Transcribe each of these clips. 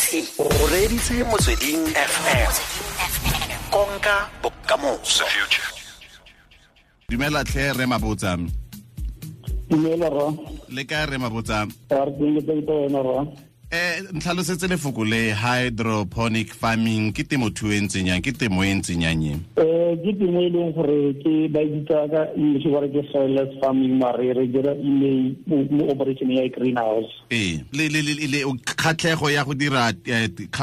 O reditse Motsweding FM, konka bokamoso. Dumela tlhe, re Mabotsa. Dumela, ra. Le kae, re Mabotsa? Re teng, ke teng, wena, ra? Ntlhalosetse lefoko le hydroponic farming, ke temothuo e ntseng yang, ke temo e ntseng yang e? Ke temo e leng gore ke ba e bitsa ka English ba re ke soilless farming, mare re dira email mo operation ya greenhouse. Ee, le kgatlhego ya go dira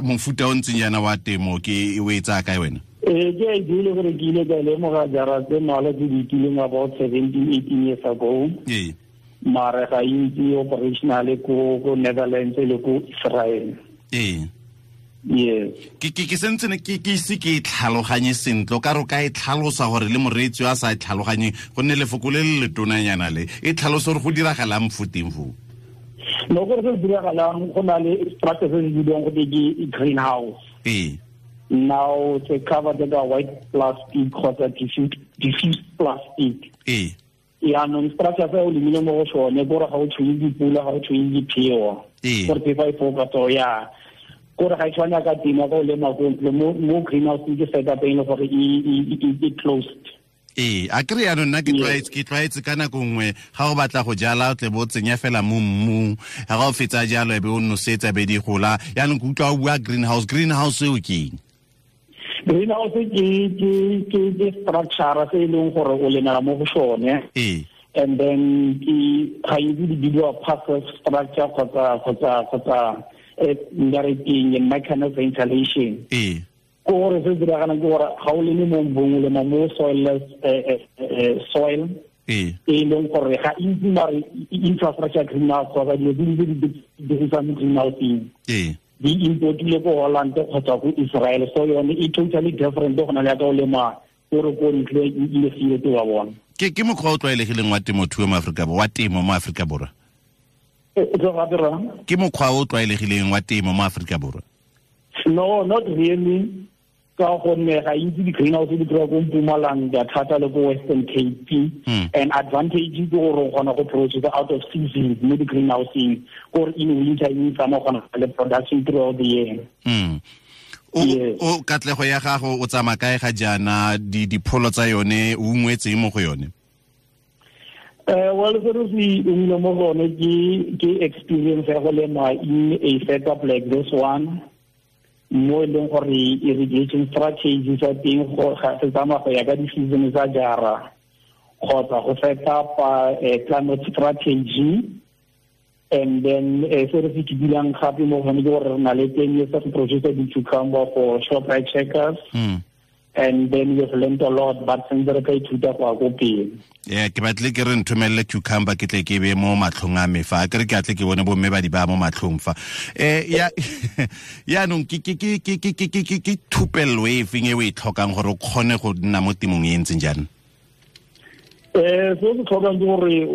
mofuta o ntseng yana wa temo ke o e tsaya kae wena? Ke a idea gore ke ile ka lemoga jara tse mmalwa tse di fetileng, about 17 18 years ago. Mare ga itse operational ko Netherlands le ko Israel. Yes. Ke sentse ne ke ise ke e tlhaloganye sentle, o ka re o ka e tlhalosa gore le moreetsi a sa e tlhaloganye, gonne lefoko le le letonanyana le e tlhalosa gore go diragalang fo teng foo. No, gore se diragalang, go na le structure se se bidiwang go ke greenhouse. Now se covered ka white plastic kgotsa diffused plastic. Yaanong structure se o lemile mo go sone, kore ga o tshwenye dipula, ga o tshwenye dipheo. Gore phefo e foka, so ya kore ga e tshwane ka temo ka o lema ko ntle. Mo greenhouse ke setup e leng gore e closed. Ee, a kry yaanong nna ke tlwaetse ka nako nngwe ga o batla go jala, o tle bo o tsenya fela mo mmung, ga o fetsa jalo e be o nosetsa, be di gola. Yaanong ke utlwa o bua greenhouse, greenhouse eo ke eng? Greenhouse ke structure se e leng gore o lemela mo go sone. And then ke ga itse di bidiwa passive structure kgotsa nka re keng, mechanical ventilation. Ke gore se se diragalang ke gore ga o leme mo mbung, o lema mo soilless soil. E leng gore ga itse mare infrastructure greenhouse kgotsa dilo tse di dirisang mo greenhouseng di importile ko Holland kgotsa ko Israel, so yone e totally different go na le ya ka o lema kore ko ntle le field wa bona. Ke mokgwa o tlwaelegileng wa temothuo mo Aforika Borwa, wa temo mo Aforika Borwa? Ke mokgwa o tlwaelegileng wa temo mo Aforika Borwa? No, not really, ka gonne ga itse di-greenhouse di kry-a ko Mpumalanga thata le ko Western Cape. And advantage ke gore o kgona go produce out of season mo di-greenhouseng, kore in winter e tsamaya, kgona le production throughout the year. O katlego ya gago, o tsamaya kae ga jaana, dipholo tsa yone, o ungwetseng mo go yone? Well, se re se ungile mo go yone ke experience ya go lema in a setup like this one, mo e leng gore irrigation strategy sa teng go ga se tsamaya go ya ka di-season tsa jara, kgotsa go set up climate strategy. And then se re se kidilang gape mo gone ke gore re na le 10 years of produce di-cucumber for Shoprite Checkers. And then we've learned a lot, but sentse re ka ithuta go ya ko pele. Yeah, ke batle ke re nthomelele cucumber, ke tle ke be mo matlhong a me fa ke re ke atle ke bone bomme ba di ba mo matlhong fa. Ya, yaanong ke thupello e feng e o e tlhokang gore o kgone go nna mo temong e ntseng jaana? Se o se tlhokang ke gore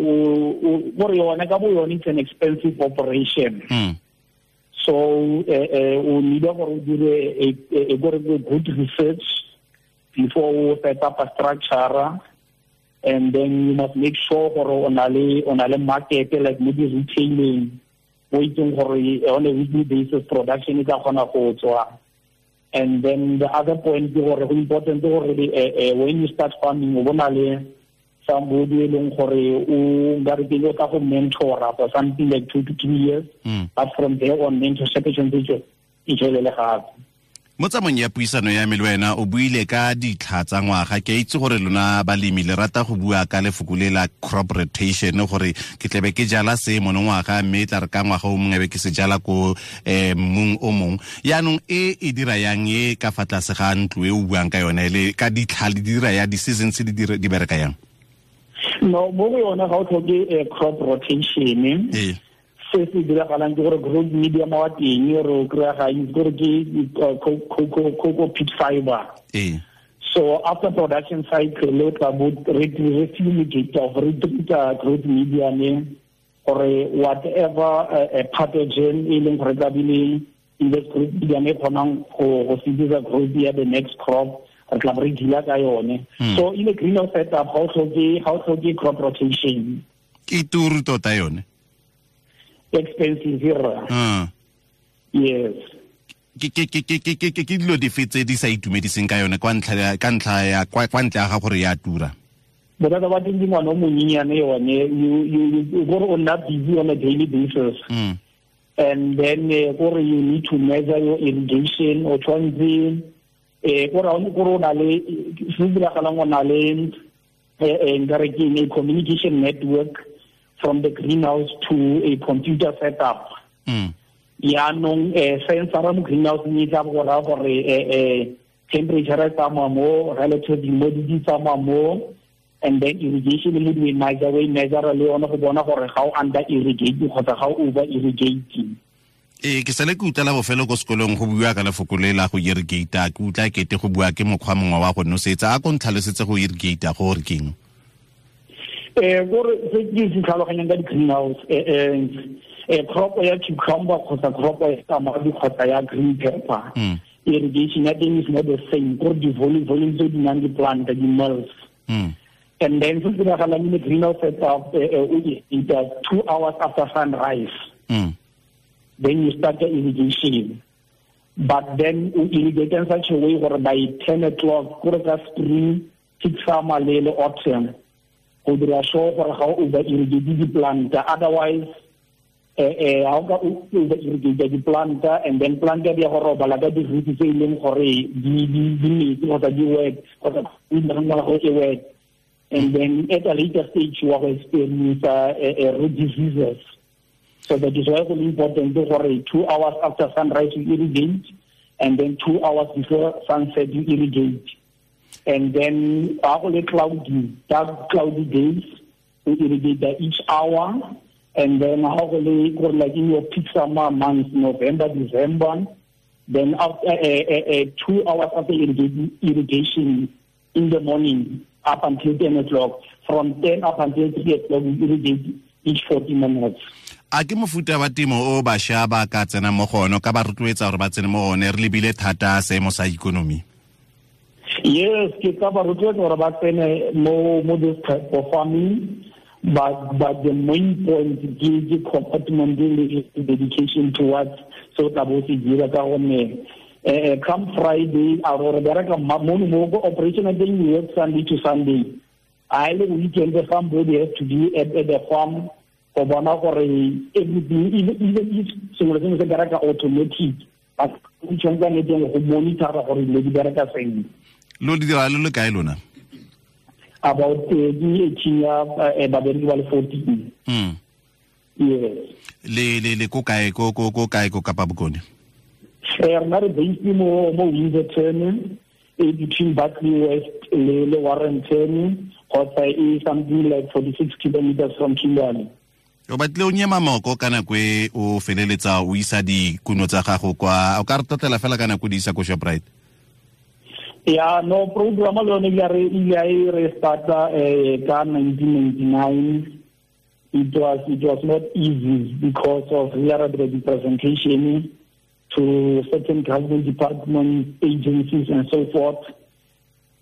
gore yone ka bo yone it's an expensive operation. So o need gore o dire a gore good research before o set up a structure, and then you must make sure gore o na le market, like mo di-retailing o itseng gore on a weekly basis production e tla kgona go tswa. And then the other point ke gore go important gore when you start farming, o bona le somebody e leng gore o nka re ke o tla go mentora for something like 2 to 3 years, but from there on mentorship e tshwanetse e tswelele gape. Mo tsamong ya puisano ya me le wena, o buile ka ditlha tsa ngwaga. Ke a itse gore lona balemi le rata go bua ka lefoko le la crop rotation, gore ke tlebe ke jala se monongwaga, mme e tla re ka ngwaga o mongwe be ke se jala ko mmung o mongwe. Yaanong e e dira yang e ka fa tlase ga ntlo e o buang ka yone, le ka ditlha le dira ya di-seasons di bereka yang? No, mo go yone ga o tlhoke crop rotation. Se se diragalang ke gore growth medium wa teng re o kry-a ga itse gore ke coco peat fiber. So after production cycle, o tla bo re fumigate of re treat growth medium gore whatever pathogen e leng gore tla bile in this growth medium e kgonang go sedisa growth ya the next crop, re tla bo re deala ka yone. So in a greenhouse setup ga o tlhoke crop rotation. Ke turu tota yone. Expensive, rra. Yes. Ke dilo dife tse di sa itumediseng ka yone kwa ntlha ka ntlha ya kwa ntle ga gore ya tura? Bothata ba teng ke ngwana o monyenyane yone, you gore o nna busy on a daily basis. And then gore you need to measure your irrigation, o tshwanetse gore o na le se diragalang, o na le nkare ke a communication network from the greenhouse to a computer setup. Yaanong sensor mo greenhouse e tla go raya gore temperature e tsamaya mo, relative humidity tsamaya mo, and then irrigation le di measure, we measure le yone go bona gore ga o under irrigate kgotsa ga o over irrigate. Ke sale ke utlwela bofelo ko sekolong go bua ka lefoko le la go irrigate, ke utlwa kete go bua ke mokgwa mongwe wa go nosetsa. A ko ntlhalosetse go irrigate go gore keng? Gore se ke se tlhaloganyang ka di-greenhouse, crop ya cucumber kgotsa crop ya tamati kgotsa ya green pepper, irrigation ya teng is not the same, gore di-volume tse di nang di-plant di-mills. And then se diragalang in the greenhouse setup, o irrigate 2 hours after sunrise. Then you start the irrigation. But then you irrigate in such a way where by 10 o'clock, gore ka spring, peak summer le autumn, go dira sure gore ga o over irrigate di-plant. Otherwise, ga o ka over irrigate di-plant, and then plant di ya go robala ka di-roots tse e leng gore di metsi kgotsa di wet, kgotsa go e wet. And then at a later stage, you will experience root diseases. So that is why it's important to 2 hours after sunrise you irrigate, and then 2 hours before sunset you irrigate. And then after cloudy, dark cloudy days, you irrigate each hour. And then like in your peak summer months, November, December, then after 2 hours after irrigation in the morning up until 10 o'clock, from 10 up until 3 o'clock, we irrigate each 40 minutes. A ke mofuta wa temo o bašwa ba ka tsena mo go one, ka ba rotloetsa gore ba tsene mo go one, re lebile thata seemo sa ikonomi? Yes, ke ka ba rotloetsa gore ba tsene mo this type of farming, but the main point ke commitment le dedication towards so tla bo se dira ka gonne come Friday, a re bereka mo go operation ya teng we work Sunday to Sunday. I le weekend somebody has to be at the farm go bona gore everything, even if sengwe le sengwe se bereka automatic, but o tshwanetse ne teng go monitor gore dilo di bereka sentle. Lo di dira le kae lona? About di 18 ya babereki ba le 14. Yes. Le ko kae ko kae ko Kapa Bokone? Rena re based mo Windsorton, between Barkley West le Warrenton, kgotsa e something like 46 kilometers from Kimberley. O batle o nyema moko ka nako e o feleletsa o isa dikuno tsa gago kwa, o ka re totela fela ka nako di isa ko Shoprite? Yeah, no, program le yone ile re starta ka 1999. It was not easy because of we are the presentation to certain government departments, agencies, and so forth.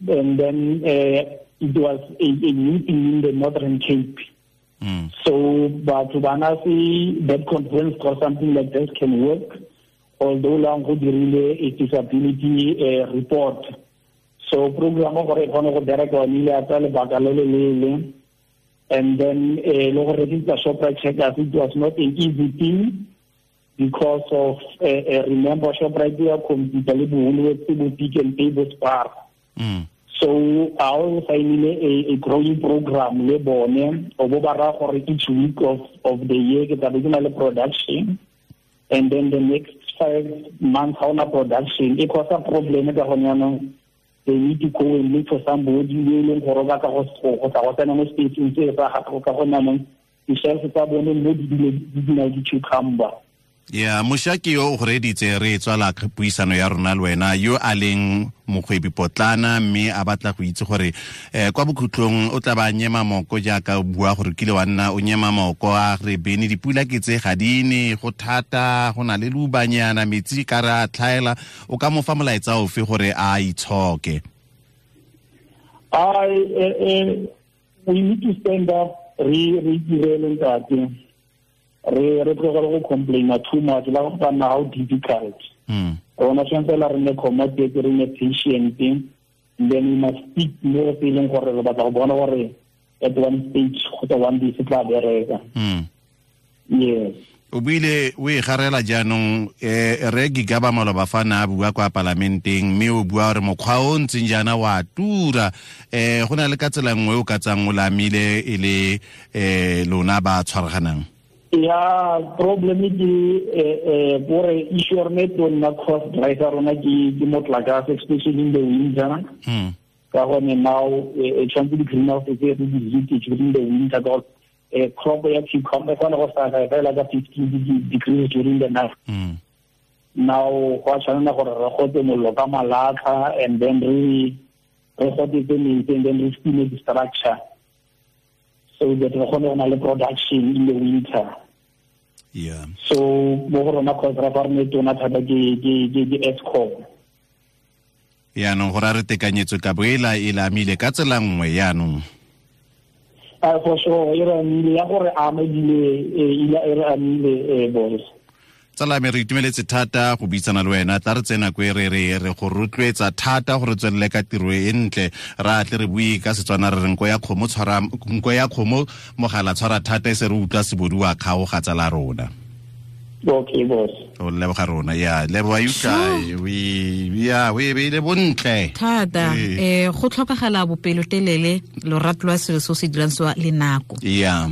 And then it was a new thing in the Northern Cape. So, but to Banasi, that conference or something like this can work, although lang go dirile a disability report. So, program gore e kgone go bereka one ile ya tsaya lebaka le le leele. And then le go register Shoprite Checkers, it was not an easy thing because of, remember, Shoprite ya computer le bo bo Pick n Pay bo Spar. So I also signed a growing program le bone o bo ba ra gore each week of the year ke tla be ke na le production, and then the next 5 months ha ona production e cause a problem ka gone yanong they need to go and look for somebody yo e leng gore ba ka go tla go tsena mo spacing se sa gago ka gone yanong di-shelf tsa bone mo di dula di cucumber. Ya mošwa ke yo o go reditse re tswala puisano ya rona le wena yo a leng mokgwebi potlana mme a batla go itse gore kwa bokhutlong o tla ba nyema moko jaaka o bua gore kile wa nna o nyema moko a re bene dipula ke tse ga di ne go thata go na le lubanyana metsi ka re a tlhaela o ka mo fa molaetsa ofe gore a itshoke? We need to stand up re direle ntate re tlogele go complaina too much la go nna how difficult. Rona tshwanetse la re nne committed, re nne patient, and then we must stick mo se leng gore re batla go bona gore at one stage kgotsa one day se tla bereka. Yes. O buile o e garela jaanong, re Gigaba maloba fa na a bua kwa palamenteng, mme o bua gore mokgwa o ntseng jaana wa tura. Go na le ka tsela nngwe o ka tsang o lamile e le lona ba tshwaraganang. Ya, problem ke gore issue rona e tonna cost driver rona ke motlakase, especially in the winter. Ka gone now e tshwanetse di-greenhouse tse re di heat during the winter, ka crop ya cucumber kgona go survive fela ka 15 degrees during the night. Now go a tshwanela gore re gote mollo ka malatlha, and then re gotetse metsi, and then re steam the structure so that re kgone go na le production in the winter. Yeah. So mo go rona cost ra fa re ne tona thata ke Eskom. Yaanong gore a re tekanyetso ka bo e la e lamile ka tsela nngwe yaanong. For sure, e re amile ya gore ama ebile e re amile boss. Tsala me re itumeletse thata go buisana le wena, tla re tsena ko e re re re go rotloetsa thata gore tswelele ka tiro e ntle, ra tle re bue ka Setswana re re nko ya kgomo tshwara nko ya kgomo mogala tshwara thata e se re utlwa sebodu wa kgaoga tsala rona. Okay boss. O leboga rona ya leboga you we ya we beile bontle thata. Go tlhokagala bopelotelele, lorato lwa selo se o se dirang se le nako. Ya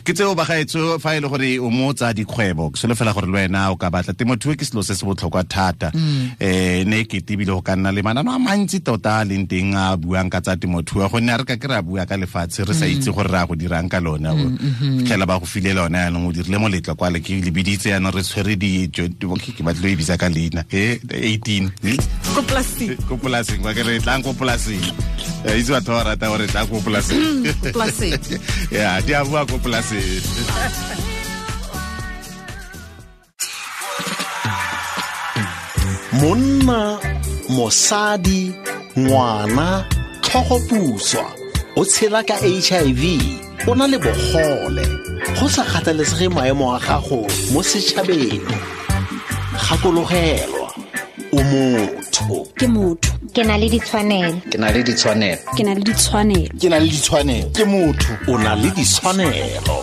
ke tseo bagaetso fa e le gore o mo tsa dikgwebo, ke solofela gore le wena o ka batla temothuo ke selo se se botlhokwa thata. Ne ke tebile go ka nna le manano a mantsi tota a leng teng a buang ka tsa temothuo, gonne a re ka ke re a bua ka lefatshe re sa itse gore re a go dirang ka lone. Fitlhela ba go file lone yanong o dirile moletlo kwa le ke lebiditse yanong re tshwere dijo ke batlo e bitsa ka leina 18 ko polasing, ko polasing kwa ke re tlang ko polasing. Itse batho ba rata gore tlang ko polasing. Polasing. Ya di a bua ko polasing. Monna, mosadi, ngwana, tlhogopuswa, o tshela ka HIV, o na le bogole, go sa kgathalesege maemo a gago mo setšhabeng. Gakologelwa, o motho. Ke motho. Ke na le ditshwanelo. Ke na le ditshwanelo. Ke na le ditshwanelo. Ke na le ditshwanelo. Ke motho, o na le ditshwanelo.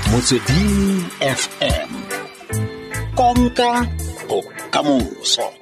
Motsweding FM. Konka bokamoso.